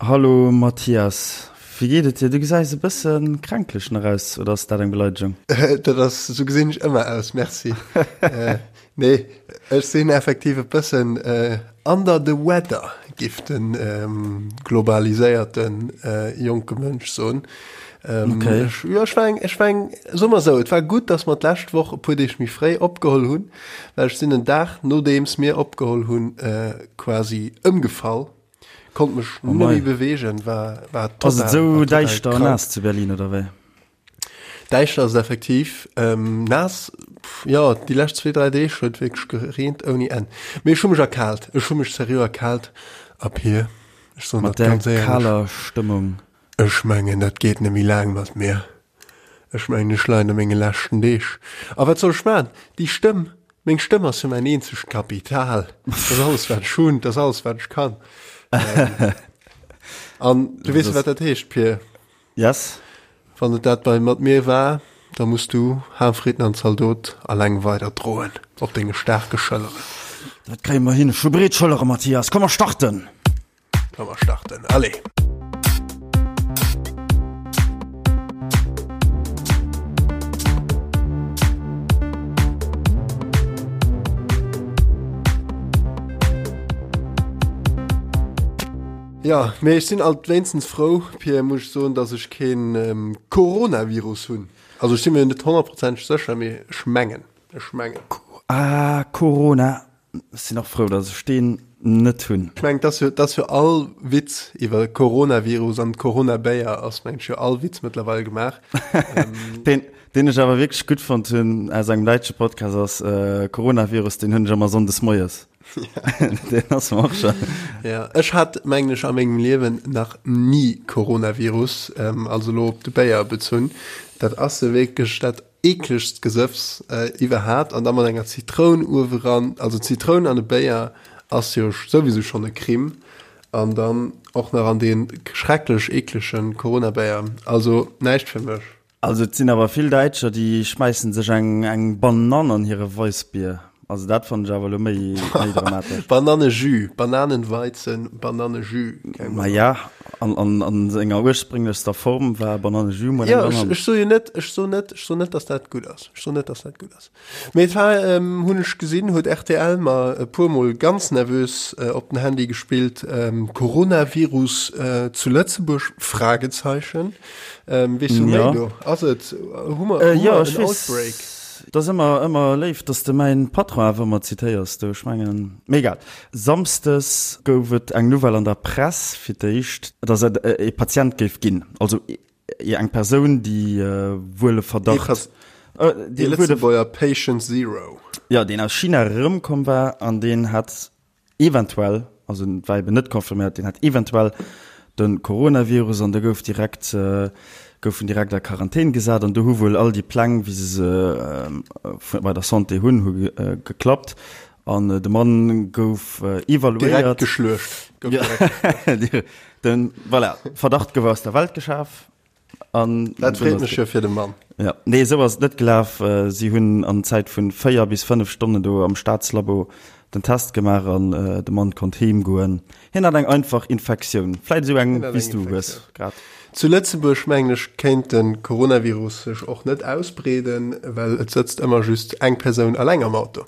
Hallo Mathias, wéi geet et dir? Du gesäis e bësse kränklech nach aus, oder ass dat eng Beleidegung? Dat ass, esou gesinn ech ëmmer aus, merci. Nee, ech sinn effektiv e bëssen under the weather, giff de globaliséierte jonke Mënsch soen. Okay. Ech, jo, ech war eng, ech war eng, soe mer esou, et war gutt, datt mer d'lescht Woch e puer Deeg méi fréi opgeholl hunn, well ech sinn en Dag nodeems mir opgeholl hunn, quasi ëmgefall. Konnt mech Oh net méi mei. beweegen, war, war Ass et total, esou war total däischter an krank. naass zu Berlin, oder wéi? Däischter ass et effektiv. Ähm, naass, pff, jo, déi lescht zwee, dräi Deeg huet wierklech gereent ouni Enn. Mee ech hu mech erkaalt, ech hu mech seriö erkaalt. A Pir, ech soen Mat dat där ganz éierlech, kaler Stëmmung. ech mengen, dat geet net méi laang mat mir. Ech mengen, ech leien a menge leschten Deeg. A wat soll ech maachen? Déi Stëmm, meng Stëmm ass jo mäin eenzegt Kapital. Dat ass alles, wat ech hunn, dat ass alles, wat ech kann. An du weess jo, wat dat heescht, Pir. Yes. Wann et dat bei mat mir war, da muss du Haarfritten an Zaldot alleng weider droen op denge staarke Schëlleren. Dat kréie mer hin. Ech hu breet Schëllere, Mathias. Komm, mer starten! Komm mer starten, allez! Jo, mee ech sinn alt wéinstens frou, Pierre, muss ech soen, dass ech keen Coronavirus hunn. Also ech si mir net honnertprozenteg sécher, mee ech mengen, ech mengen. Ah, Corona. Ech sinn och frou, dass ech deen net hunn. Ech mengen, dass jo, dass jo all Witz iwwer Coronavirus an Coronabéier ass, mengen ech, jo all Witz mëttlerweil gemaach. Deen, deen ech awer wierklech gutt fonnt hunn aus engem däitsche Podcast ass Coronavirus, deen hunn ech ëmmer sonndes moies. Deen ass mer och schon. Ja, ech hat, mengen ech, a mengem Liewen nach ni Coronavirus, also elo op de Béier bezunn. Dat ass jo wierklech dat Eeklegst Gesëffs iwwerhaapt an da mat enger Zitroun ueweran, also Zitroun an e Béier ass jo souwisou schonn e Crime an dann och nach an dee schrecklech eeklege Coronabéier, also näischt fir mech. Also et sinn awer vill Däitscher déi schmäissen sech eng eng Banann an hire Weissbier, also dat fannen ech awer elo méi méi dramatesch. Banannejus, Bananenweizen, Banannejus, keng Ma Banann. ja, an an an senger ursprénglechster Form war Banannejus mol eng Jo, ech Banann. ech soe jo net, ech soen net, ech soen net, dass dat gutt ass, ech soen net, dass dat gutt ass. Mee et war, hunn ech gesinn, huet rtl mer e puer mol ganz nervös op den Handy gespillt, Coronavirus zu Lëtzebuerg? Fragezeichen. Weess du méi do? Ass et, hu mer, hu mer en Outbreak? Et ass ëmmer, ëmmer léif, dass de mäin Patron awer ëmmer zitéiers do. Ech mengen, mee egal. Samsdes gouf et eng Nouvelle an der Press fir d'éischt, dass et e Patient géif ginn, also eng Persoun, déi wuel e Verdacht, Dee Lëtzebuerger Patient Zero. Jo, deen aus China erëmkomm war an deen hat eventuell, also et war eben net confirméiert, deen hat eventuell de Coronavirus an da gouf direkt, gouf en direkt a Quarantän gesat an do hu wuel all déi Pläng, wéi se se bei der Santé hunn, hu geklappt an de Mann gouf evaluéiert. Direkt geschluecht. Gouf direkt geschluecht. Den, voilà, Verdacht gouf aus der Welt geschaf. An Dat freet mech jo fir de Mann. Ja, nee, esou ass et net gelaf. Si hunn an Zäit vun 4 bis 5 Stonnen do am Staatslabo den Test gemaach an de Mann konnt heem goen. Hien hat eng einfach Infektioun, vläit esou eng wéi s du hues grad. Zu Lëtzebuerg, mengen ech, kéint de Coronavirus sech och net ausbreeden, well et sëtzt ëmmer just eng Persoun alleng am Auto.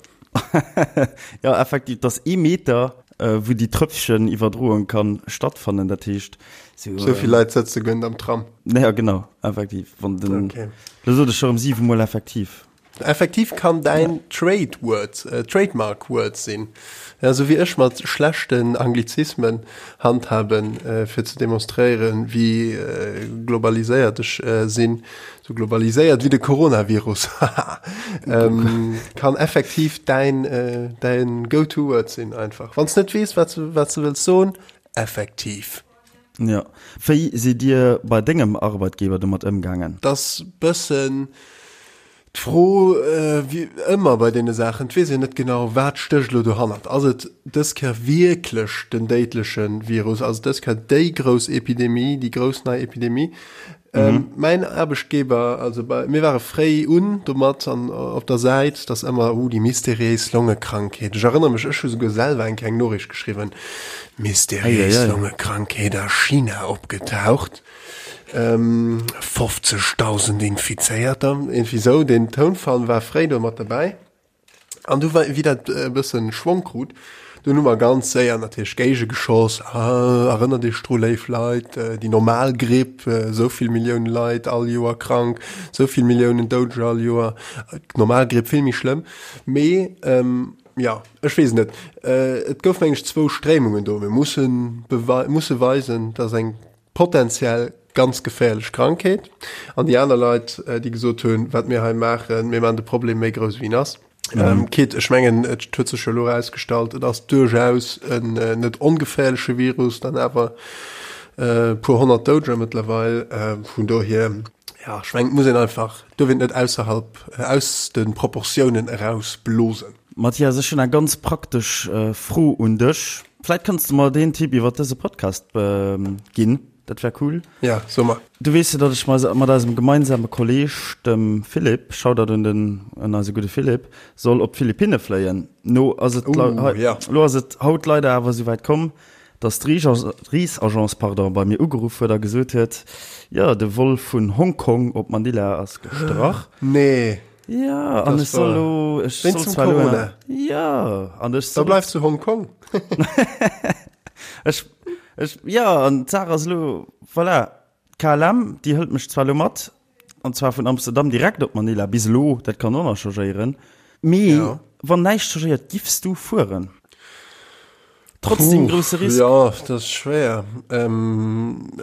Jo, effektiv, et ass ee Meter, wou déi Tröpfchen Iwwerdroung kann stattfannen. Dat heescht, sou. Sou vill Leit sëtze guer net am Tram. Ja, genau, effektiv. Wann den. Okay. Lo sot ech scho rëm siwe Mol effektiv. Effektiv kann däin Trade Word, Trademark Word sinn. Ja, sou wéi ech mat schlechten Anglizismen handhaben, fir ze demonstréieren, wéi globaliséiert ech sinn. Sou globaliséiert wéi de Coronavirus, haha, kann effektiv däin, däin Go-to-Word sinn einfach. Wann s net weess, wat s, wat s de wëlls soen, effektiv. Jo. Wéi sidd Dir bei dengem Arbeitgeber domat ëmgaangen? T'ass bëssen. D'Fro, wéi ëmmer bei deene Saachen, et weess een net genau, wat stécht elo dohannert. Ass et dës Kéier wierklech den déidleche Virus? Ass et dës Kéier déi grouss Epidemie, déi grouss nei Epidemie? Mäin Aarbechtgeber, also bei, mir ware fréi un domat an op der Säit, dass ëmmer, uh, déi mysteriéis Longekrankheet. Ech erënnere mech, ech hu souguer selwer eng kleng Noriicht geschriwwen, Mysteriéis Longekrankheet a China opgetaucht. 50.000 Infizéierter, iergendwéi sou. Deen Tounfall war fréi do mat derbäi. An du wéi dat e bëssen Schwong krut, dunn hu mer ganz séier natierlech géigegeschoss, Ah, erënnert Iech dru léif Leit, déi normal Gripp, esou vill Millioune Leit all Joer krank, esou vill Milliounen Doudeger all Joer, d'normal Gripp vill méi schlëmm. Mee jo, ech weess et net. Et gouf meng ech zwou Stréimungen do. Mir mussen musse weisen, dass eng potenziell ganz geféierlech Krankheet an déi aner Leit, déi gesot hunn, wat mir hei maachen, mir maachen de Problem méi grouss wéi en ass. Mhm. Quitte, ech mengen, et huet sech jo elo erausgestallt, et ass duerchaus en net ongeféierleche Virus, dann awer e puer honnert Doudeger mëttlerweil. Vun dohier, ja, ech mengen, et muss een einfach, duerf een et net ausserhalb, aus de Proportiounen erausblosen. Mathias, ech hunn eng ganz praktesch Fro un dech. Vläit kanns de mer deen Tipp iwwer dëse Podcast ginn, dat wär cool. Ja, so mer. Du weess jo, datt ech mat eisem gemeinsame Kolleeg, dem Philippe, Shoutout un den, un eise gudde Philippe, soll op d'Philippinne fléien. No ass et, lo ass et haut leider awer esouwäit komm, datt d'Reesagence, pardon, bei mir ugeruff huet a gesot huet, jo, de Vol vun Hongkong op Manila ass gestrach. Nee. Ja, an ech soll lo, ech soll zwar lo, Corona. Ja, an ech soll. Da bleifs zu Hongkong. Ech, ech, ja, an d'Saach ass lo, voilà, d'KLM, déi hëlt mech zwar lo mat, an zwar vun Amsterdam direkt op Manila, bis elo, dat kann och nach changéieren, mee ja. wann näischt changéiert, giffs du fueren? Trotz deem grousse Risk? Jo, dat ass schwéier.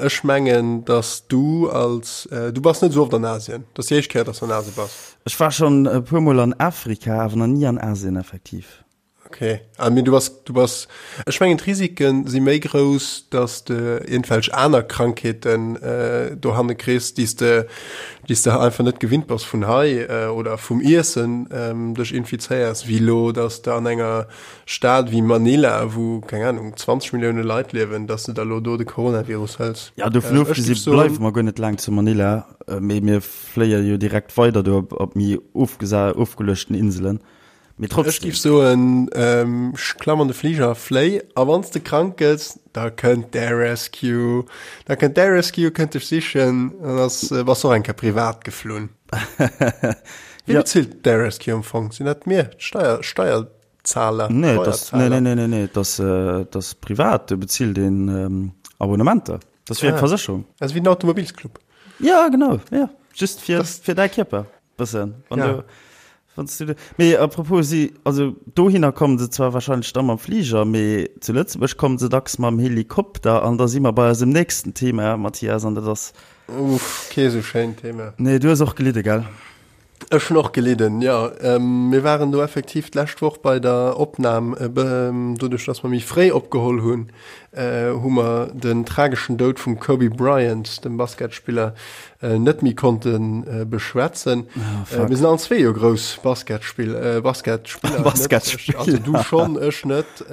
Ech mengen, dass du als, du bass net esou oft an Asien, dat ass déi éischt Kéier, dass du an Asien bass. Ech war schonn e puer Mol an Afrika, awer nach ni an Asien effektiv. Ok, ah mee du bass, du bass, ech mengen d'Risike si méi grouss, dass de iergendwelch aner Krankheeten dohanne kriss, déi s de, déi s de einfach net gewinnt bass vun hei oder vum Iessen dech infizéiers, wéi elo, dass de an enger Stad wéi Manila, wou, keng Ahnung, 20 Millioune Leit liewen, dass de da lo do de Coronavirus hëls. Ja, dovun ofgesi bleiwe mer guer net laang zu Manila, mee mir fléie jo direkt weider do op méi ofgeluechten Inselen. Mee trotzdem. Ech géif soen, klamm an de Fliger, fléi, a wann s de krank gëss, da kënnt d'Air Rescue. Da kënnt d'Air Rescue, kënnt dech sichen, an da bass och eng Kéier privat geflunn. Wie bezilt d'Air Rescue am Fong? Sinn dat mir, d'Steier, Steier, Zahler, nee, das, nee, nee, nee, nee, nee, das, äh, das privat, du bezilt den ähm, Abonnementer. Das wie ah. eng Versécherung. Also wie den Automobilsclub. Ja, genau, ja. Just fir, das, fir däi Kierper. Bëssen. Wann ja. du, wann du, mee apropos, si, also dohinner kommen se zwar wahrscheinlech dann mam Flieger, mee zu Lëtzebuerg kommen se dacks mam Helikopter an da si mer bei eisem nächsten Thema, Mathias, an dat ass. Uff, kee sou schéint Thema. Nee, du hues och gelidde, gell? Ech hunn och gelidden, jo. Mir waren do effektiv d'lescht Woch bei der Opnam. Doduerch, dass mer méi fréi opgeholl hunn, hu mer den trageschen Doud vum Kobe Bryant, dem Basketspiller, net méi konnte beschwätzen. Mir sinn allen zwee jo grouss Basketspiller. Basketspiller. Also du schonn, ech net.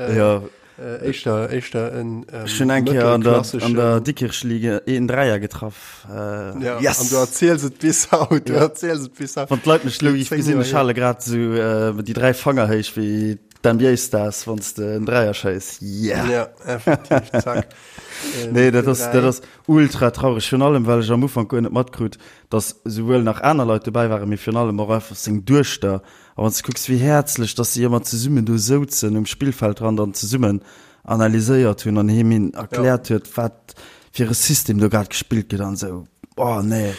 Éischter, éischter en ähm, Ech hunn eng Kéier an der, an der Dikkirchliga een Dräier getraff. Äh, ja, yes. An du erziels et bis haut, du ja. erziels et bis haut. Wann d'Leit mech lo gesinn, ech hale grad sou äh, déi dräi Fanger héich wéi d'NBA-Stars, wann s de en Dräier schéiss. Yeah! Ja, effektiv, zack. Nee, dat ass, dat ass ultra traureg, virun allem well ech am Ufank guer net matkrut, dass souwuel nach aner Leit dobäi waren, mee virun allem och einfach seng Duechter A wann s de kucks, wéi häerzlech dass si ëmmer zesummen do souzen um Spillfeldrand an zesummen analyséiert hunn an him hin erkläert huet, wat fir e System do grad gespillt gëtt an esou. Oh nee.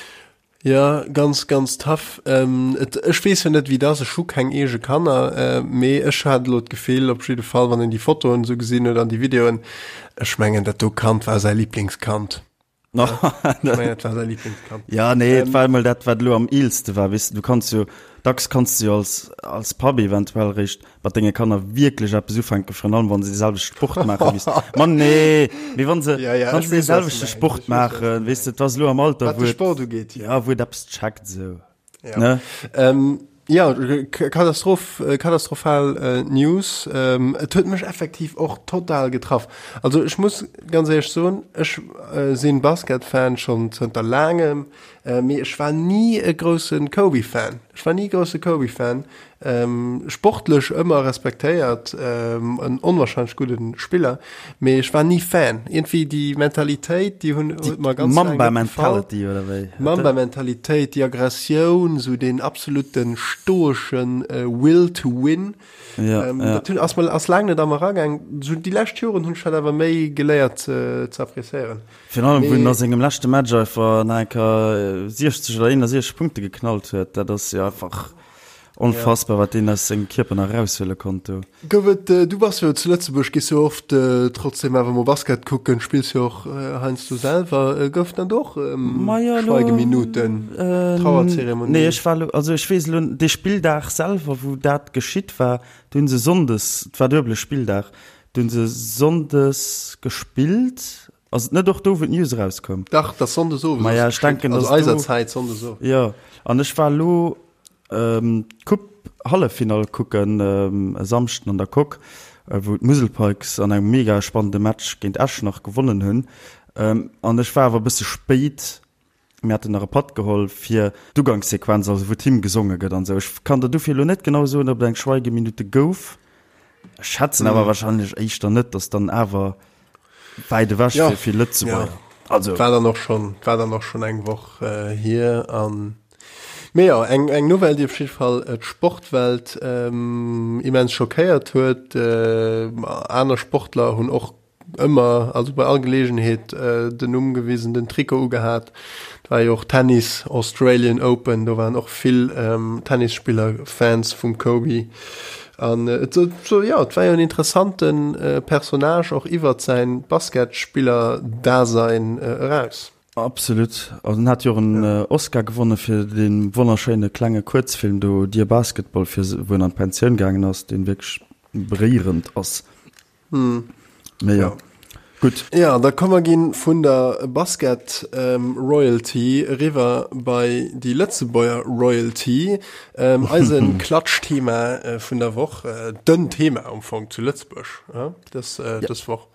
Jo, ganz, ganz tough. Et, ech weess jo net, wéi et ass, ech hu keng eege Kanner, mee ech hat elo d'Gefill, op jidde Fall, wann een déi Fotoen esou gesinn huet an déi Videoen, ech mengen, dat do Kand war säi Liblingskand. Ja nee et war emol dat wat elo am eelste war weess de du kanns jo dacks kanns de jo als als Papp eventuell réischt mat denge Kanner wierklech eppes ufänken virun allem wann se dee selwechte Sport maache wéi s ma nee mee wann se Ja, ja, wann ech se dee weess, wat du selwechte mengs, Sport ech weess, wat du maachen mengs. weess de et ass elo am Alter Wat wou de et Sport ugeet, ja wou et eppes checkt esou. Ja. Ne? Ähm, ja, Katastroph, äh, katastrophal äh, News. Ähm, et huet mech effektiv och total getraff. Also ech muss ganz ehrlich soen, ech äh, sinn Basket-Fan schon zënter laangem, äh, mee ech war nie e groussen Kobe-Fan. Ech war nie e grousse Kobe-Fan. Sportlech ëmmer respektéiert, en onwahrscheinlech gudde Spiller, mee ech war ni Fan. Iergendwéi déi Mentalitéit, déi hunn huet mer ganz laang net gefall. Mamba-Mentality oder wéi? Mamba-Mentalitéit, déi Aggressioun, esou deen absolute stoesche Will to win. Ja, ja. Dat hunn ass mer ass laang net a mer eragaang. Esou déi lescht Joren hunn ech dat awer méi geléiert ze appréciéieren. Virun allem, wou en a sengem leschte Match einfach nach eng Kéier 60 oder 61 Punkte geknallt huet, dat ass jo einfach Onfassbar, wat deen aus sengem Kierper nach eraushuele konnt do. Gouf et, du bass jo zu Lëtzebuerg, gees jo oft trotzdem awer mol Basket kucken, spills jo och heiansdo selwer. Gouf dann do och Schweigeminuten, Trauerzeremonien? Nee, ech war elo, also ech weess elo, dee Spilldag selwer, wou dat geschitt war, do hu se sonndes, et war duebele Spilldag, do hu se sonndes gespillt. Ass et net och do, wou d'News erauskoum? Dach, dat ass sonndes owes. Maja, ech denken, also eiser Zäit sonndes owes. Jo, an ech war elo d'Coupe-Halleffinall kucken e Samschden an der Coque, wou d'Musel Pikes an engem mega spannende Match géint Eschnach gewonnen hunn. An ech war awer e bësse spéit, mir haten nach e Patt geholl fir d'Ugangssequenz, also wou d'Hymn gesonge gëtt an esou. Ech kann der dofir elo net genau soen, ob et eng Schweigeminute gouf. Ech schätzen awer wahrscheinlech éischter net, dass dann awer wäit ewech Ja. fir vill Lëtzebuerger. Ja. Also War dann och schon, war dann och schon eng Woch äh, hier an Mee jo, eng, eng Nouvelle, déi op jidde Fall äh, d'Sportwelt ähm, immens schockéiert huet. Äh, aner Sportler hunn och ëmmer, also bei all Geleegenheet äh, den Numm gewisen, den Trikot ugehat. Et war jo och Tennis, Australian Open, do waren och vill ähm, Tennisspiller Fans vum Kobe. An et so, jo, et war jo en interessante Personnage och iwwert säin Basketspiller-Dasein eraus. Absolut. Also en hat jo och en Oscar gewonne fir dee wonnerschéine klenge Kuerzfilm do Dear Basketball, fir wou en an d'Pensioun gaangen ass, dee wierklech beréierend ass. Mee jo, gutt. Jo, da komm mer ginn vun der Basket Royalty eriwwer bei déi Lëtzebuerger Royalty. Eise Klatschthema vun der Woch, den Thema am Fong zu Lëtzebuerg dës dës Woch.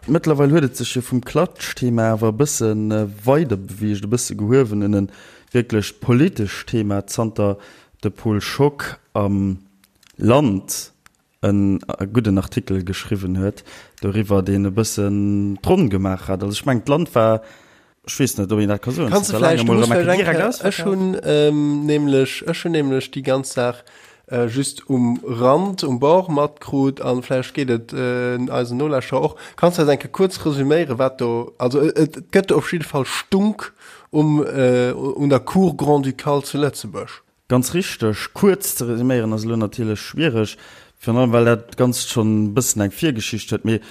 Mëttlerweil huet et sech jo vum Klatschthema awer e bësse weider beweegt, e bësse gehuewen en e wierklech politescht Thema, zanter de Paul Schock am Land en gudden Artikel geschriwwen huet doriwwer, deen e bëssen d'Ronn gemaach hat. Also ech mengen, d'Land war, ech weess net, ob een dat ka soen, Kanns de zanter vläicht, laangem du mol muss erëm eng vläicht Kéier eng direkt Kéier, ech ausverkaaft. hunn nämlech, ech hunn nämlech déi ganz Saach just um Rand, um Bord matkrut an vläicht geet et eisen Nolauschterer och. Kanns de eis eng Kéier kuerz resüméieren, wat do, also et gëtt op jidde Fall Stunk um, un der Cour grand-ducale zu Lëtzebuerg. Ganz richteg. Kuerz ze resuméieren ass elo natierlech schwiereg, virun allem well dat Ganzt schonn e bëssen eng Virgeschicht huet. Mee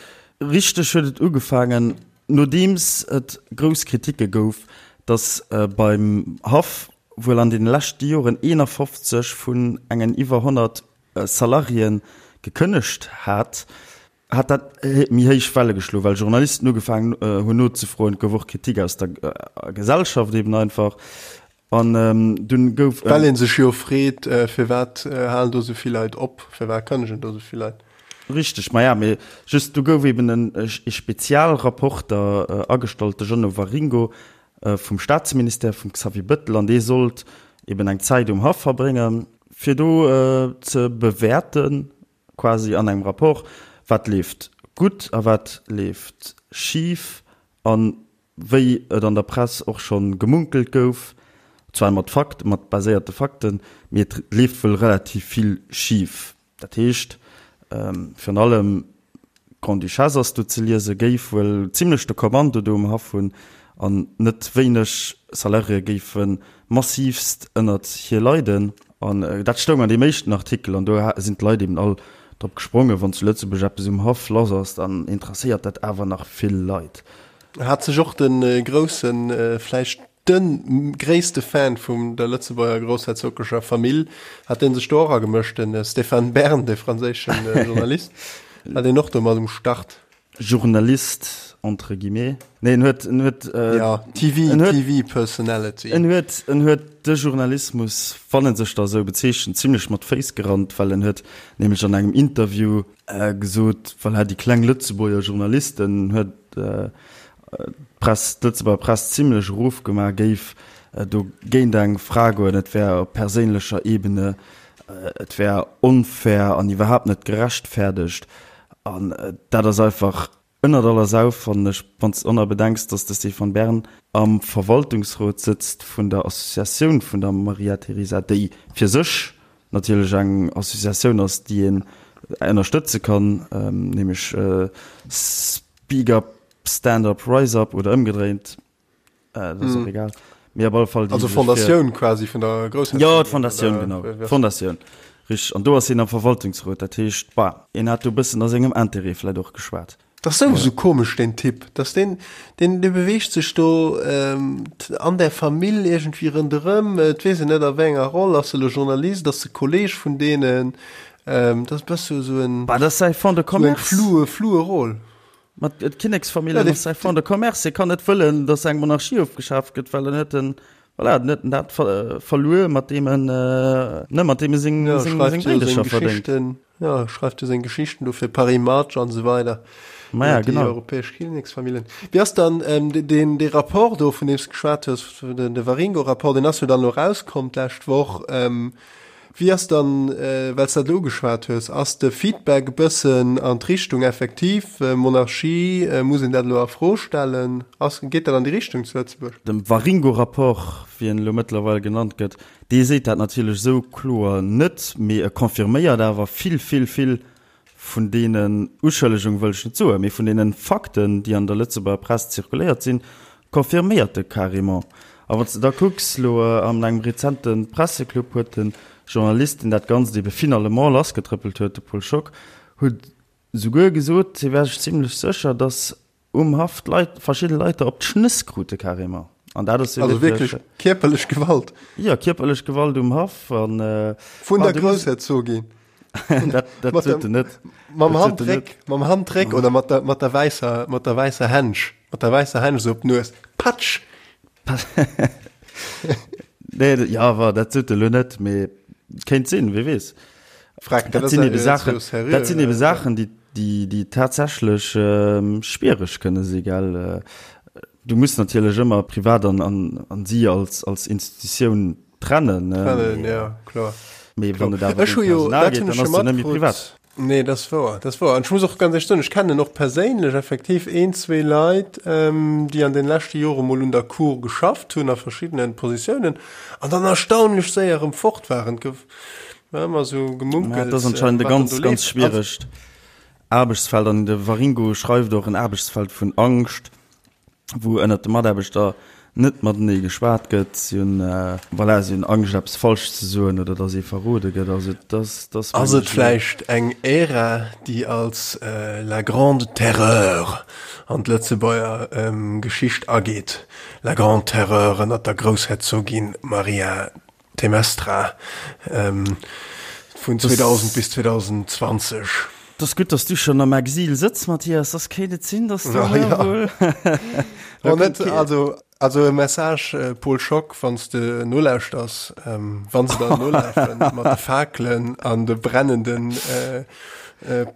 richteg huet et ugefaangen, nodeems et grouss Kritike gouf, datt beim Haff wuel an deene leschte Joren 51 vun engen iwwer 100 Salariéen gekënnegt hat, hat dat méi héich Welle geschloen, well Journalisten ugefaangen hunn nozefroen. Et gouf och Kritik aus der Gesellschaft eben einfach. An dunn gouf en. Well ee sech jo freet, firwat halen do esou vill Leit op, firwat kënnegen do esou vill Leit? Richteg, maja, mee just do gouf eben en e Spezialrapporter agestallt, de Jeannot Waringo vum Staatsministère, vum Xavier Bëttel, an dee sollt eben eng Zäit um Haff verbréngen, fir do ze bewäerten, quasi an engem Rapport, wat leeft gutt a wat leeft schif an wéi et an der Press och scho gemunkelt gouf, zwar mat Fakt, mat baséierte Fakten, mee et leeft wuel relativ vill schif. Dat heescht, virun allem d'Grande-Duchesse ass do ze liesen, géif wuel zimlech de Kommando do um Haff hunn an net wéineg Salariéë géife massiivst ënnert hir leiden. An dat stoung an deem éischten Artikel an do sinn d'Leit eben all drop gesprongen, wann zu Lëtzebuerg eppes um Haff lass ass, dann interesséiert dat awer nach vill Leit. Hat sech och de groussen, vläicht de gréisste Fan vum der Lëtzebuerger groussherzoglecher Famill, hat dee sech do och agemëscht, de Stéphane Bern, de franséischen Journalist, war deen och do mat um Start? Journalist entre guillemets, nee en huet, en huet, ja, TV, en huet, TV Personality. En huet, en huet de Journalismus, wann en sech da esou bezeechent, zimlech mat Féiss gerannt, well en huet nämlech an engem Interview gesot, voilà, déi kleng Lëtzebuerger Journalisten, huet d'Press, d'Lëtzebuerger Press zimlech erofgemaach, géif do géint eng Fra goen, et wär op perséinlecher Ebene, et wär onfair an iwwerhaapt net gerechtfäerdegt. An dat ass einfach ënnert aller Sau, fannen ech, wann s de och nach bedenks, dass de Stéphane Bern am Verwaltungsrot sëtzt vun der Associatioun vun der Maria Teresa, déi fir sech natierlech eng Associatioun ass, déi een ënnerstëtze kann, nämlech Speak Up, Stand Up, Rise Up oder ëmgedréint. Äh, das ist mm. auch egal. Mee op alle Fall déi, also Fondatioun quasi vun der Groussherzogin. Jo, d'Fondatioun, genau. D'Fondatioun. Richteg. An do ass hien am Verwaltungsrot. Dat heescht, bah, hien hat do e bëssen a sengem Interêt vläicht och geschwat. Dat ass souwisou komesch, deen Typ. Dass deen, deen, dee beweegt sech do ähm, an der Famill iergendwéi ronderëm. Et weess een net a wéi enger Roll. Ass e lo Journalist? Ass e Kolleeg vun deenen? Ähm, dat ass e bësse sou en, Bah, dat ass säi Fonds de sou eng commerce. floue, floue Roll. Ma d'Kinneksfamilljen ass säi Fonds de commerce. Hie kann net wëllen, datt eng Monarchie ofgeschaaft gëtt, well dann huet en, voilà, dann huet en dat verluer, mat deem en, ne, mat deem e seng, Ja, seng, schreift seng jo seng Bréidecher verdéngt. Geschichten, ja, schreift jo seng Geschichten do fir Paris Match an esou weider. Ma ja, Iwwer déi genau. europäesch Kinneksfamilljen. Wéi ass dann deen, dee Rapport do, vun deem s de geschwat hues, den, de Waringo-Rapport, deen ass jo dann elo erauskomm d'lescht Woch. Wéi ass dann, well s dat elo ugeschwat hues, ass de Feedback e bëssen an d'Richtung effektiv Monarchie, muss een dat elo a Fro stellen? Ass, geet dat an déi Richtung zu Lëtzebuerg? De Waringo-Rapport, wéi en elo mëttlerweil genannt gëtt, dee seet dat natierlech esou kloer net, mee e confirméiert awer vill, vill, vill Vun deenen Uschëllegung wëll ech net soen, mee vun deenen Fakten, déi an der Lëtzebuerger Press zirkuléiert sinn, confirméiert e carrément. A wann s de da kucks, elo an engem rezente Presseclub huet de Journalist, deen dat Ganzt ebe finalement lassgetrëppelt huet, de Paul Schock, huet souguer gesot, hie wär sech zimlech sécher, datt Um Haff d'Leit, verschidde Leit der op d'Schnëss krute carrément. An dat ass jo Also wierklech kierperlech Gewalt? Jo, kierperlech Gewalt um Haff an. Vun der Groussherzogin? Dat, dat sot en net. Mam Handdréck, mam Handdréck oder mat der, mat der wäisser, mat der wäisser Händsch, mat der wäisser Händsch esou op d'Nues. Patsch! Nee, jo, wa, dat sot e lo net, mee kéint sinn, wie weess. Freck, dat sinn ebe Saachen, dat sinn ebe Saachen, déi, déi, déi tatsächlech ähm, schwiereg kënne si, gell. Du muss natierlech ëmmer privat an, an, an si als, als Institutioun trennen. Trennen, ja, kloer. Mee wann et awer Ech hu jo, Personal dat geet, hunn ech dann jo ass et net méi matkrutt. privat. Nee, dat ass wouer, dat ass wouer. An ech muss och ganz éierlech soen, ech kennen och perséinlech effektiv een, zwee Leit, déi an den leschte Jore mol un der Cour geschafft hunn a verschiddene Positiounen an dann erstaunlech séier erëm fort waren. Et gouf ëmmer esou Ja, gemunkelt, et ass anscheinend e wat dann ganz, do ganz leeft. schwieregt Aarbechtsfeld. An de Waringo schreift och en Aarbechtsfeld vun Angscht. wou ënnert de Mataarbechter net matenee geschwat gëtt. Si hunn, voilà, si hunn Angscht eppes falsch ze soen oder datt ee verrode gëtt. Also et ass, et ass Ass et mengen ech. vläicht eng Ära, déi als la grande terreur an d'Lëtzebuerger Geschicht ageet? La grande terreur ënnert der Groussherzogin Maria Temestra vun 2000 bis 2020. 't ass gutt, dass du schonn am Exil sëtz, Mathias, soss kéint et sinn, dass du Ja. wuel. Oh, net, also, also e Message, Paul Schock, wann s de nolauschters, wann se dann nolafen mat de Fakelen an de brennenden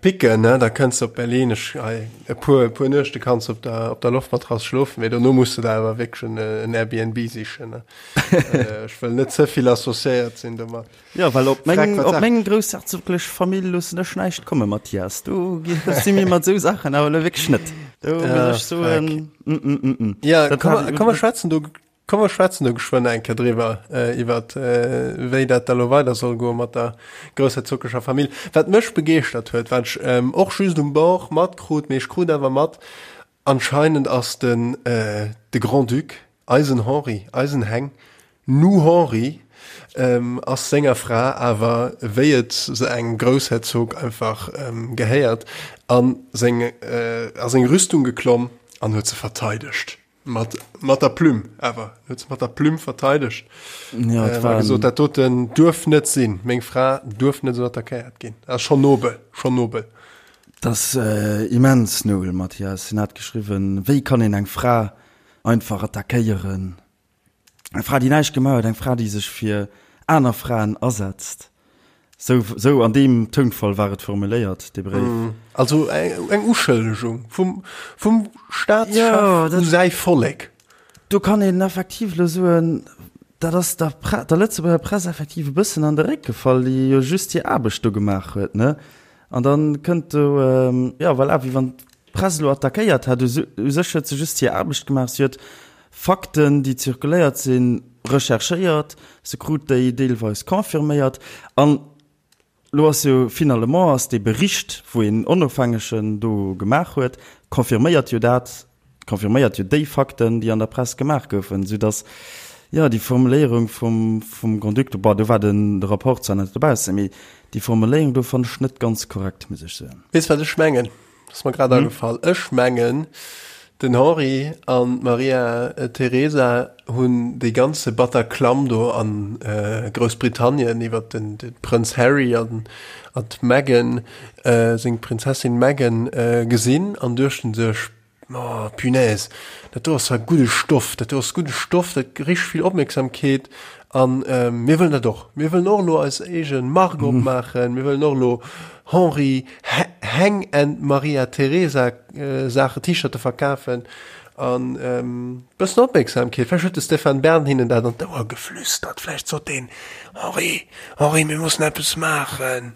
Picken, ne, da kënns de op Berlin. Ech, hei, e puer, e puer Nuechte kanns de op der, op der Loftmatrass schlofen, mee dono muss de der awer wierklech en, en Airbnb sichen, ne. Ech wëll net ze vill associéiert sinn domat. Jo, well op Freck, meng, wat op sag. meng groussherzoglech Famill loossen ech näischt kommen, Mathias. Do si mir mat esou Saachen awer elo wierklech net. Do muss Ah, ech soen, Freck. mm, mm, mm, mm. Ja, Dat komm, hat, komm mer schwätzen do, komm mer schwätzen do geschwënn eng Kéier driwwer, äh, iwwert, äh, wéi dat da lo weider soll goe mat der groussherzoglecher Famill. Wat mech begeeschtert huet, wat ech, ähm, och just um Bord matkrut, mee ech krut awer mat, anscheinend ass den, äh, de Grand-Duc, Eisen Henri, eisen Heng, nu Henri, ass senger Fra awer, wéi et se engem Groussherzog einfach gehéiert, a seng a seng Rüstung geklomm an huet se verteidegt. Mat mat der Plume awer, huet se mat der Plume verteidegt. Ja, et A war gesot, dat doten duerf net sinn, meng Fra duerf net esou attackéiert ginn. Ass schonn nobel, schonn nobel. Dat ass immens nobel, Mathias. Hien hat geschriwwen, Wéi kann een eng Fra einfach attackéieren? Eng Fra, déi näischt gemaach huet, eng Fra, déi sech fir aner Fraen asetzt. Sou, sou an deem Tounfall war et formuléiert, dee Bréif. Also eng Uschëllegung vum, vum Staatschef u säi Vollek. Do kann een effektiv elo soen, dat ass der Pre-, der Lëtzebuerger Press effektiv e bëssen an de Réck gefall, déi jo just hir Aarbecht do gemaach huet, ne? An da kënnt do, jo, voilà, wéi wann d'Press elo attackéiert hätt. U sech huet se just hir Aarbecht gemaach. Si huet Fakten, déi zirkuléiert sinn, recherchéiert, se krut déi deelweis confirméiert. An elo ass jo finalement ass dee Bericht, wou een Onofhängegen do gemaach huet, confirméiert jo dat, confirméiert jo déi Fakten, déi an der Press gemaach goufen, soudass, jo, déi Formuléierung vum, vum Grand-Duc, bon, do war den, de Rapport zwar net dobaussen, mee déi Formuléierung do fannen ech net ganz korrekt, muss ech soen. Weess, wat ech mengen? Ass mer grad agefall. Ech mengen, den Henri an d'Maria Teresa hunn dee ganze Bataclam do a Groussbritannien iwwer den Prënz Harry an d'Meghan, seng Prinzessin Meghan, gesinn an duechten sech, Oh, punaise, dat do ass zwar gudde Stoff, dat do ass gudde Stoff, dat richteg vill Opmierksamkeet an mir wëllen dat och. Mir wëllen och elo eis eege Mark opmaachen, mir wëllen och elo Henri, Heng and Maria Teresa Saachen, T-Shirte verkafen an bëssen Opmierksamkeet. Vläicht huet de Stéphane Bern hinnen dat an d'Ouer geflüstert. Vläicht sot deen, Henri, Henri, mir mussen eppes maachen.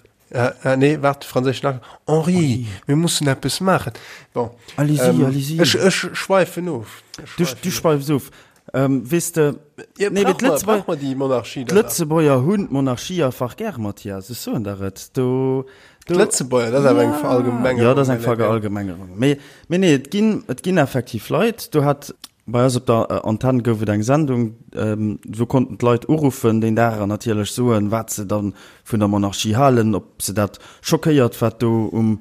Nee, waart, franséischen Accent. Henri, mir mussen eppes maachen. Bon. Allez-y, allez-y. Ech, ech schweifen of. Du, du schweifs of. Ähm, weess de, Ja, nee, brauch mer, brauch mer déi Monarchie dann nach? D'Lëtzebuerger hunn d'Monarchie einfach gär, Mathias, ech soen der et. Do, do, D'Lëtzebuerger, dat ass awer eng Verallgemengerung. Ja, dat ass eng Verallgemengerung. Mee, mee nee, et ginn, et ginn effektiv Leit, do hat, bei eis op der Antenn gouf et eng Sendung, do konnten d'Leit uruffen deen Dag an natierlech soen, wat se dann vun der Monarchie halen, ob se dat schockéiert, wat do um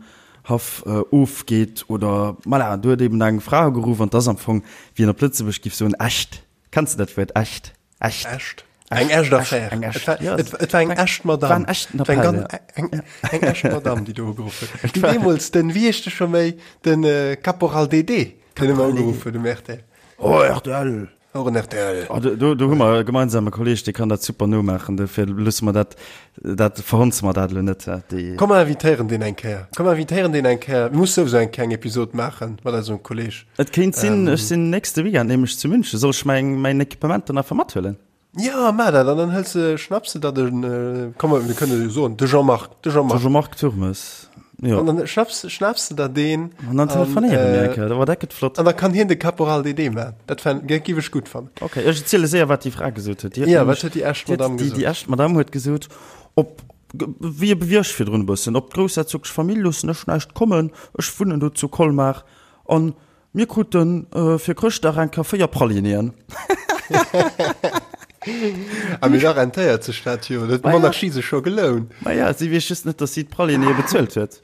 Haff ofgeet oder voilà, do huet eben eng Fra ugeruff an 't ass am Fong, wéi een op Lëtzebuerg giff soen, echt. Kenns de dat Wuert, echt? Echt. Echt. Eng echt Affär. Eng echt, ja. Et, et war eng echt Madame. War en echten Appell, eng, ja. Eng, eng echt Madame, déi do ugeruff huet. Déi deemools den, wéi heescht de scho méi, den Caporal DD, deen ëmmer ugeruff huet um rtl. Oh, rtl! Och en rtl. Oh, do, do, do hu mer e gemeinsame Kolleg, dee kann dat super nomaachen, dofir loosse mer dat, dat verhonze mer dat elo net. Déi. Komm mer invitéieren deen eng Kéier. Komm mer invitéieren deen eng Kéier. Mir musse souwisou eng kleng Episod maache mat eisem Kolleg. Et kéint sinn, ech sinn nächste Weekend nämlech zu München. Soll ech mäin, mäin Equipement dann einfach mathuelen? Ja, maach dat an dann hëls de, schnapps de der den, komm mir kënne jo soen, de Jean-Marc, de Jean-Marc. De Jean-Marc Turmes, jo. An dann schnapps, schnaps de der deen. An dann telefonéiere mir eng Kéier, oh dat gëtt flott. An da kann hien de Caporal DD maachen, dat fänd, géif ech gutt fannen. Ok, ech erziele séier, wat déi Fra gesot huet. Ja, wat huet déi echt Madame gesot? Déi echt Madame huet gesot, op, wéi e wéi ech virdrun e bëssen, op d'groussherzoglech Famill loossen ech näischt kommen, ech wunnen do zu Colmar an Mir kruten fir Chrëschtdag eng Kéier 4 Pralinéen. A mee da rentéiert sech dat jo, dat huet d'Monarchie sech scho gelount. Maja, si weess just net, datt si d'Pralinéë bezuelt huet.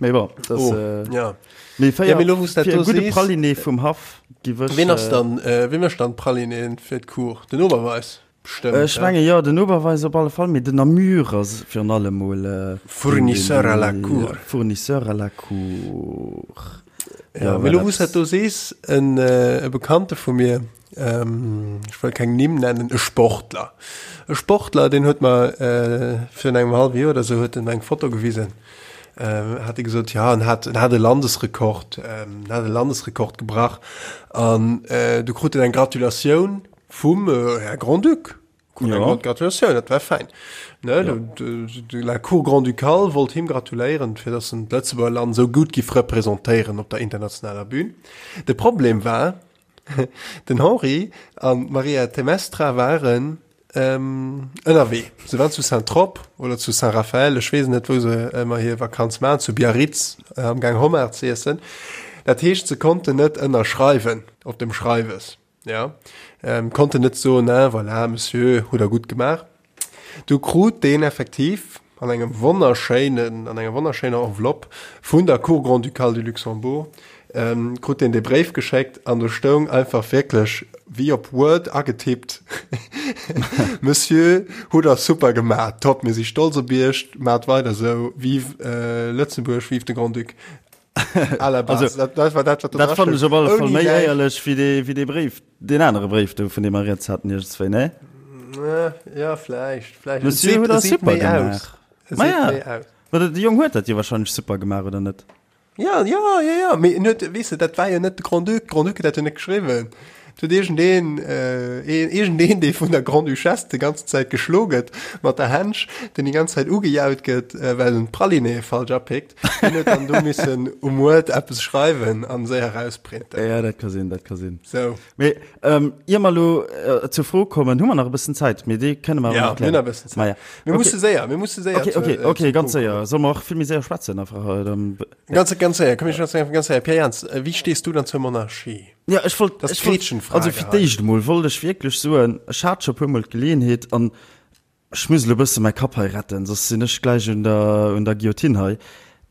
Mee bon, dat ass. Oh, ja. Mee 4, mee lo, wou s dat do gudde Praliné vum Haff giff ech. Ween ass dann, wee mécht dann d'Pralinéen fir d'Cour? Den Oberweis? Bestëmmt, Ech menge jo, den Oberweis op alle Fall, mee den Namur ass virun allem mol Fournisseur à la cour. Fournisseur à la cour. Ja, mee lo wou s dat do sees, en e Bekannte vu mir, ech wëll keng Nimm nennen, e Sportler, e Sportler, deen huet mer virun engem hallwe Joer oder sou huet en mer eng Foto gewisen, hat e gesot, ja en hat en hat e Landesrekord, en hat e Landesrekord gebrach an du krut en eng Gratulatioun Vum Här Grand-Duc. Krut eng ja. Gratulatioun, dat war fein. Ne, ja. de, de, la Cour Grand-Ducale wollt him gratuléieren, fir dass en d'Lëtzebuerger Land sou gutt giff representéieren op der internationaler Bühn. De Problem war, den Henri an d'Maria Temestra waren ähm, ënnerwee. Se waren zu Saint-Trope oder zu Saint-Raphaël, ech weess net, wou se ëmmer hir Vakanz maachen, zu Biarritz äh, am Gang Homard ze iessen. Dat heescht, se konnten net ënnerschreiwen op dem Schreiwes. Ja, ähm, konnte net soen, ne, voilà, Monsieur, hutt der gutt gemaach. Du krut deen effektiv an engem wonnerschéinen, an enger wonnerschéiner Enveloppe vun der Cour grand-ducale du Luxembourg, ähm, krut deen dee Bréif geschéckt an do stoung einfach wierklech wéi op Word agetippt, Monsieur, hutt der super gemaach, top, mir si stolz op Iech, maacht weider esou, vive äh, Lëtzebuerg, vive de Grand-Duc. À la base. Also, dat, dat war dat, wat do Dat fannen ech op alle Fall Ouni méi Näischt. éierlech wéi dee, wéi dee Bréif, deen anere Bréif do, vun deem mer rieds haten iergendswéi, ne? Ja, ja, vläicht, vläicht. Et Monsieur seet, huet et dat seet super méi aus. gemaach. Et Ma seet ja. méi aus. Ma de Jong huet dat jo wahrscheinlech super gemaach, oder net? Ja, ja, ja, ja, mee en huet, weess de, dat war jo net de Grand-Duc, de Grand-Duc huet dat jo net geschriwwen. Et huet iergendeen, äh, iergendeen, dee vun der Grande-Duchesse déi ganze Zäit geschlo gëtt mat der Hänsch, deen déi ganz Zäit ugejaut gëtt, well en d'Praliné falsch apickt, deen huet dann do missen um Word eppes schreiwen an séier erausprinten. Ja, dat ka sinn, dat ka sinn. Sou. Mee ähm, ier mer elo äh, zur Fro kommen, hu mer nach e bëssen Zäit, mee déi kënne mer Ja, awer nach mir hunn klären. nach e bëssen Zäit. Ma ja. Mir Okay. musse séier, mir musse séier Okay, zur, okay, äh, okay, zum ganz Punkt séier. Solle mer och vill méi séier schwätzen einfach? Äh, dann, Ganz, ganz séier, komm, ich ganz, ganz séier. Pierre Jans, äh, wéi stees du dann zur Monarchie? Ja, ech wollt, Das ist ech wollt, Gretchenfrage also fir hei. d'éischt emol wollt ech wierklech soen, ech hat scho puermol d'Geleeënheet an Ech muss elo bësse mäi Kapp hei retten, soss sinn ech gläich un der, un der Guillotine hei.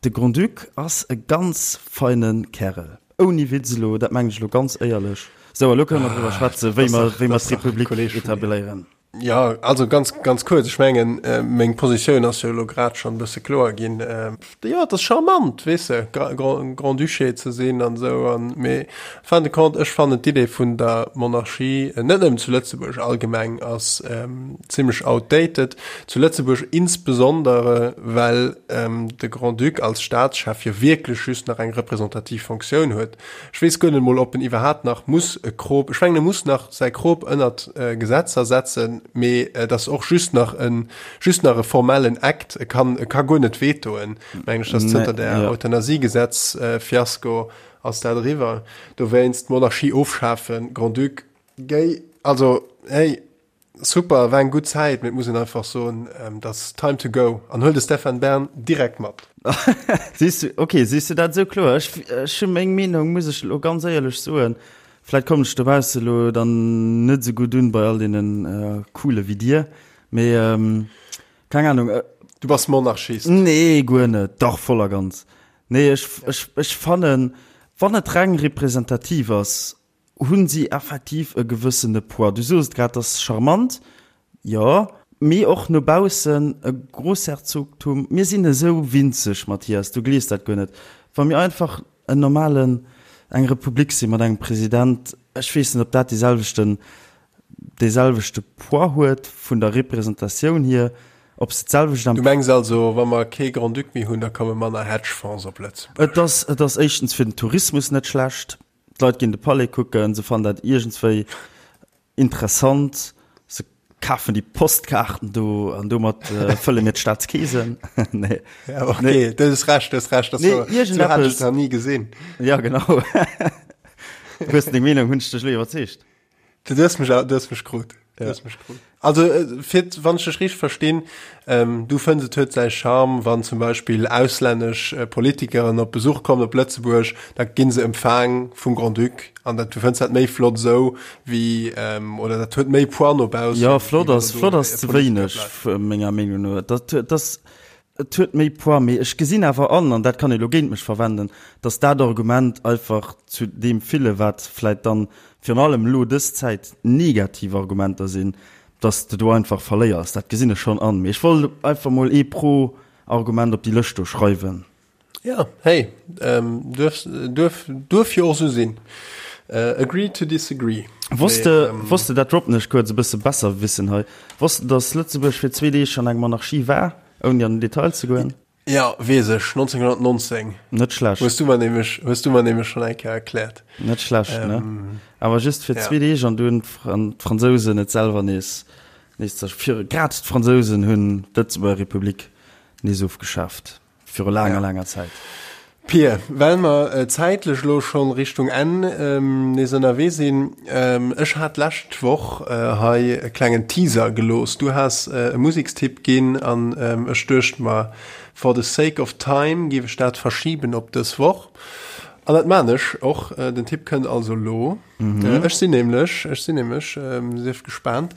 De Grand-Duc ass e ganz feine Kärel. Ouni Witz elo, dat mengen ech elo ganz éierlech. Sou, elo kënne mer driwwer schwätzen, wéi mer, wéi mer d'Republik etabléieren. Jo, also ganz, ganz kuerz, ech mengen, meng Positioun ass jo elo grad schonn e bësse kloer ginn. Jo, et ass charmant, weess de, Grand-Duché ze sinn an esou, an, mee fin de compte, ech fannen d'Idee vun der Monarchie, net nëmmen zu Lëtzebuerg, allgemeng ass zimlech outdated, zu Lëtzebuerg insbesondere, well de Grand-Duc als Staatschef jo wierklech just nach eng representativ Fonctioun huet. Ech weess guer net emol, ob en iwwerhaapt nach muss e Krop, ech mengen, e muss nach säi Krop ënnert Gesetzer setzen, mee et ass och just nach e just nach e formellen Act, e kann, e ka guer net vetoen, mengen ech, dass zënter der Euthanasiegesetz-Fiasko ass dat eriwwer. Dowéinst d'Monarchie ofschafen, Grand-Duc, géi, also hey, super, war eng gutt Zäit, mee et muss een einfach soen, et ass time to go an huel de Stéphane Bern direkt mat. Siehst du, okay, siehst du dat esou kloer? Ech, ech hu meng Meenung, muss ech elo ganz éierlech soen. Vläit kommen ech dobausse elo dann net esou gutt un bei all deenen Coole wéi dir, Mee keng Ahnung. Du bass Monarchist? Nee, guer net. Dach, voll a ganz. Nee, ech, ech, ech fannen, wann et reng representativ ass, hunn si effektiv e gewëssene Poids. Du soos et grad, ass charmant, jo, mee och no baussen e Großherzogtum. Mir sinn esou winzeg, Mathias, du glees dat guer net. Wa mir einfach en normalen, eng Republik si mat engem President, ech weess net, ob dat dee selwechten dee selwechte Poids huet vun der Representatioun hier, ob se d'selwecht Du mengs also, wa mer kee Grand-Duc méi hunn, da komme manner Hedgefonds op Lëtzebuerg? Et ass, et ass éischtens fir den Tourismus net schlecht. D'Leit ginn de Palais kucken, se fannen dat iergendswéi interessant, se kafen déi Postkaarten do an domat fëlle mir d'Staatskeesen. Nee. Ja, okay, du hues Recht, du hues Recht. Nee, iergendeppes. Sou hat ech et nach ni gesinn. Ja, genau. Du hues deng Meenung, hunn ech dech elo iwwerzeegt? Du hues mech, du hues mech krut. Du hues mech krut. Also, äh, fir, wann ech dech richteg verstinn, ähm, du fënns et huet säi Charme, wann zum Beispill auslännesch äh, Politikeren op Besuch kommen op Lëtzebuerg, da ginn se empfaang vum Grand-Duc an dat, du fënns dat méi flott esou wéi, ähm, oder dat huet méi Poids no baussen. Ja, flott wéi wann ass, do flott e ass ze Politiker wéineg, bleift. menger Meenung no. Dat, dat ass, Et huet méi Poids, mee ech gesinn awer an, an dat kann ee lo géint mech verwenden, datt dat Argument einfach zu deem ville, wat vläit dann virun allem elo dës Zäit negativ Argumenter sinn, datt s de do einfach verléiers. Dat gesinn ech schonn an, mee ech wollt einfach mol ee Pro-Argument op déi Lëscht do schreiwen. Ja, hey, duerf, duerf, duerf jo och esou sinn. Agree to disagree. Wosst de, wosst de, dat droppen ech kuerz, e bësse Besserwissen hei, wosst de, datt Lëtzebuerg fir zwee Deeg schonn eng Monarchie war? Ouni an den Detail ze goen. Jo, weess ech, 1919. Net schlecht. Hues du mer nämlech, hues du mer nämlech schonn eng Kéier erkläert. Net schlecht, ne? Awer just fir zwee Deeg an du hunn d'Fransousen et selwer nees, nees zer, fir, grad d'Fransousen hunn d'Lëtzebuerger Republik nees ofgeschaaft. Viru laanger, laanger Zäit. Pir, well mer zäitlech elo schonn Richtung Enn nees ënnerwee sinn, ech hat d'lescht Woch hei e klengen Teaser gelooss. Du has e Musekstipp ginn an ech duecht mer, for the sake of time géif ech dat verschiben op dës Woch. An dat maan ech och. Den Tipp kënnt also elo. Ech sinn nämlech, ech sinn nämlech, sief gespaant,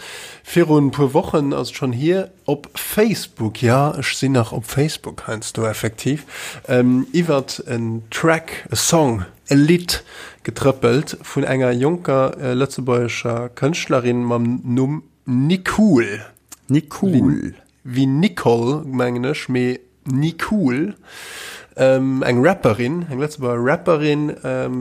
virun puer Wochen ass et schonn hier, Op Facebook, jo ech sinn nach op Facebook heiansdo effektiv, iwwert en Track, e Song, e Lidd getrëppelt vun enger jonker lëtzebuergescher Kënschtlerin mam Numm Nicool. Nicool. Wéi Nicole mengen ech, mee Nicool. Eng Rapperin, eng Lëtzebuerger Rapperin,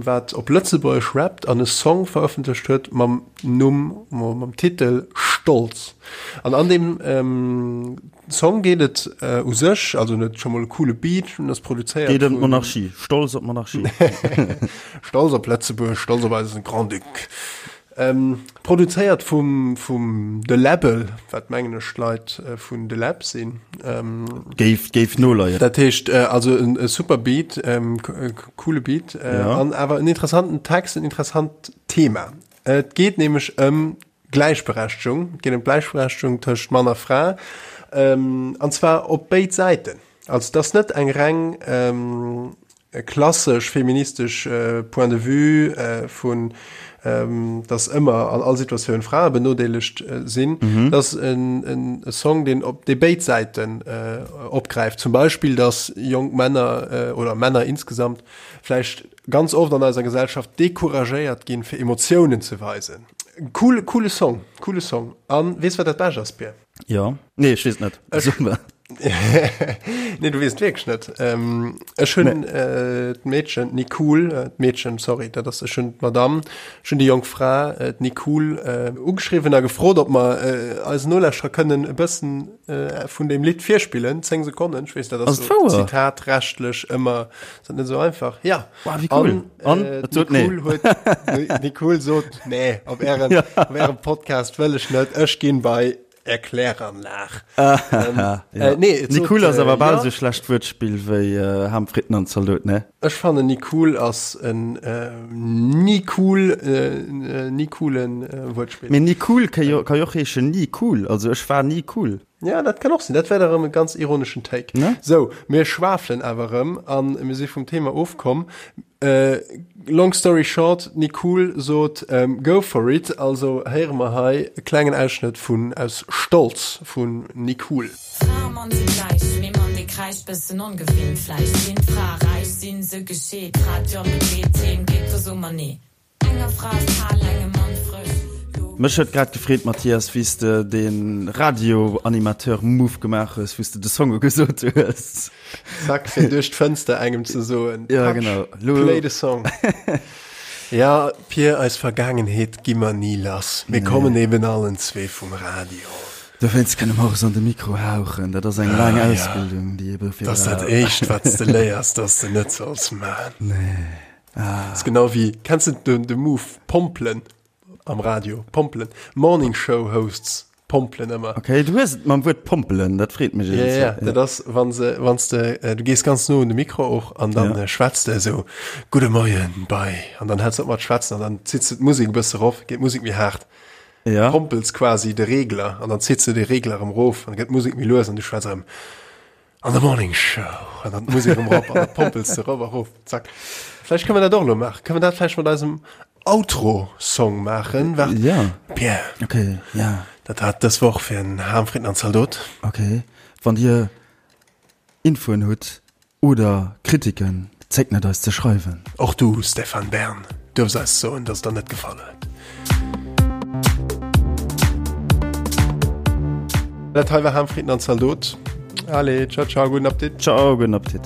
wat op Lëtzebuergesch rappt an e Song verëffentlecht huet mam Numm, mam Titel Stolz. An an deem Song geet et u sech, also en huet scho mol e coole Beat, en ass produzéiert Geet ëm d'Monarchie, Stolz op d'Monarchie. Stolz op Lëtzebuerg, Stolz op eisen Grand-Duc. Produzéiert vum vum De Läbbel, wat mengen ech d'Leit vun De Läb sinn. Géif géif noleien. Dat heescht also en e super Beat, coole Beat an awer en interessanten Text, en interessant Thema. Et geet nämlech ëm Gläichberechtegung, et geet ëm d'Gläichberechtegung tëscht Mann a Fra, an zwar op béid Säiten. Also et ass net eng reng klassesch feministesch Point de vue vun, dass ëmmer an all Situatioun Frae benodeelegt sinn. Et ass e Song, deen op dee béid Säiten opgräift. Zum Beispill, dass jonk Männer oder Männer insgesamt vläicht ganz oft an eiser Gesellschaft decouragéiert ginn, fir Emotiounen ze weisen. Cool, coole Song, coole Song. An weess wat dat Bescht ass, Pir? Jo. Nee, ech weess et net. Ech, nee, du weess et wierklech net. Ähm, ech hunn nee. äh, d'Meedchen, d'Nicole, äh, d'Meedchen, sorry, dat ass, ech hunn d'Madame, ech hunn déi jonk Fra, äh, d'Nicole, äh, ugeschriwwen a gefrot, ob mer äh, eisen Nolauschterer kënnen e bëssen äh, vun deem Lidd virspillen, 10 Sekonnen. Ech weess, dat ass Ass et wouer? zitatrechtlich ëmmer, ass dat net esou einfach. Ja. Wow, wéi cool. An, An? Äh, Et sot nee. Nicole huet, Nicole sot, nee, op ären, Ja. op ärem Podcast wëll ech net, ech ginn bei Erkläranlag. Ähm, ja. äh, nee, et sot, Nicole ass äh, awer bal ja. esou schlecht Wuertspill wéi äh, Ham Fritten an Zaldot, ne? Ech fannen Nicole ass en äh, ni cool, äh, ni coolen äh, Wuertspill. Mee Nicole ka jo, ka jo och heeschen ni cool, also ech war ni cool. Ja, dat kann och sinn. Dat wär da rëm e ganz ironeschen Take. Ne? Sou, mir schwafelen awer rëm an mir si vum Thema ofkomm. Äh, long story short, d'Nicole sot ähm, go for it. Also héiere mer hei e klengen Ausschnëtt vun aus Stolz vun Nicole. Fra a Mann si gläich, mee Mann dee kräischt, bëssen ongewinnt vläicht. Sinn d'Frae räich, sinn se gescheet, Fra d'Job begleet, heem geet, do so mer nee. Enger Fra ass kal, engem Mann frësch. Lo. Mech huet grad gefreet Mathias, wéi s de de Radio-Animateur-Move gemaach hues, wou s de de Song ugesot hues. Zack, fir duerch d'Fënster engem ze soen, Ja, Patsch, genau. Lo. play the song. Ja, Pir, eis Vergaangenheet gi mer ni lass. Mir kommen eben allen zwee vum Radio. Dowéinst kënne mer och esou an de Mikro hauchen. Dat ass eng laang Ah, ja. Ausbildung, déi ee dofir Dat ass dat brauch. Éischt, wat s de léiers, dass de net solls man. Nee. Ah. Ist genau wie, kennst du den, den Move Pompelen am Radio? Pompelen. Morning Show Hosts pompelen ëmmer. Okay, du hues et mam Wuert pompelen, dat freet mech Ja, ja, ja. Dat ass, wann se, wann de, äh, du gees ganz no un de Mikro och an dann Ja. äh, schwätzt de esou, Gudde Moien bei, an dann häls op mat schwätzen an dann zitts de d'Musek e bësse rof, geet d'Musek méi haart. Ja. Pompels quasi de Regler an dann zitts de de Regler erëm rof an dann gëtt d'Musek méi lues an du schwätz erëm. An der Morning Show an dann d'Musek erëm rop an da pompels de rop a rof. Zack. Vläicht kënne mer dat och elo maachen. Kënne mer dat vläicht mat eisem Outro-Song maachen? Waart. Ja. Pierre. Okay, ja. Dat war et dës Woch fir en Ham, Fritten an Zaldot. Okay. Wann Dir Infoen hutt oder Kritiken, zéckt net eis ze schreiwen. Och du, Stéphane Bern, duerfs eis soen, dass et der net gefall huet. Dat hei war Ham, Fritten an Zaldot. Allez, ciao, ciao, gudden Appetit. Ciao, gudden Appetit.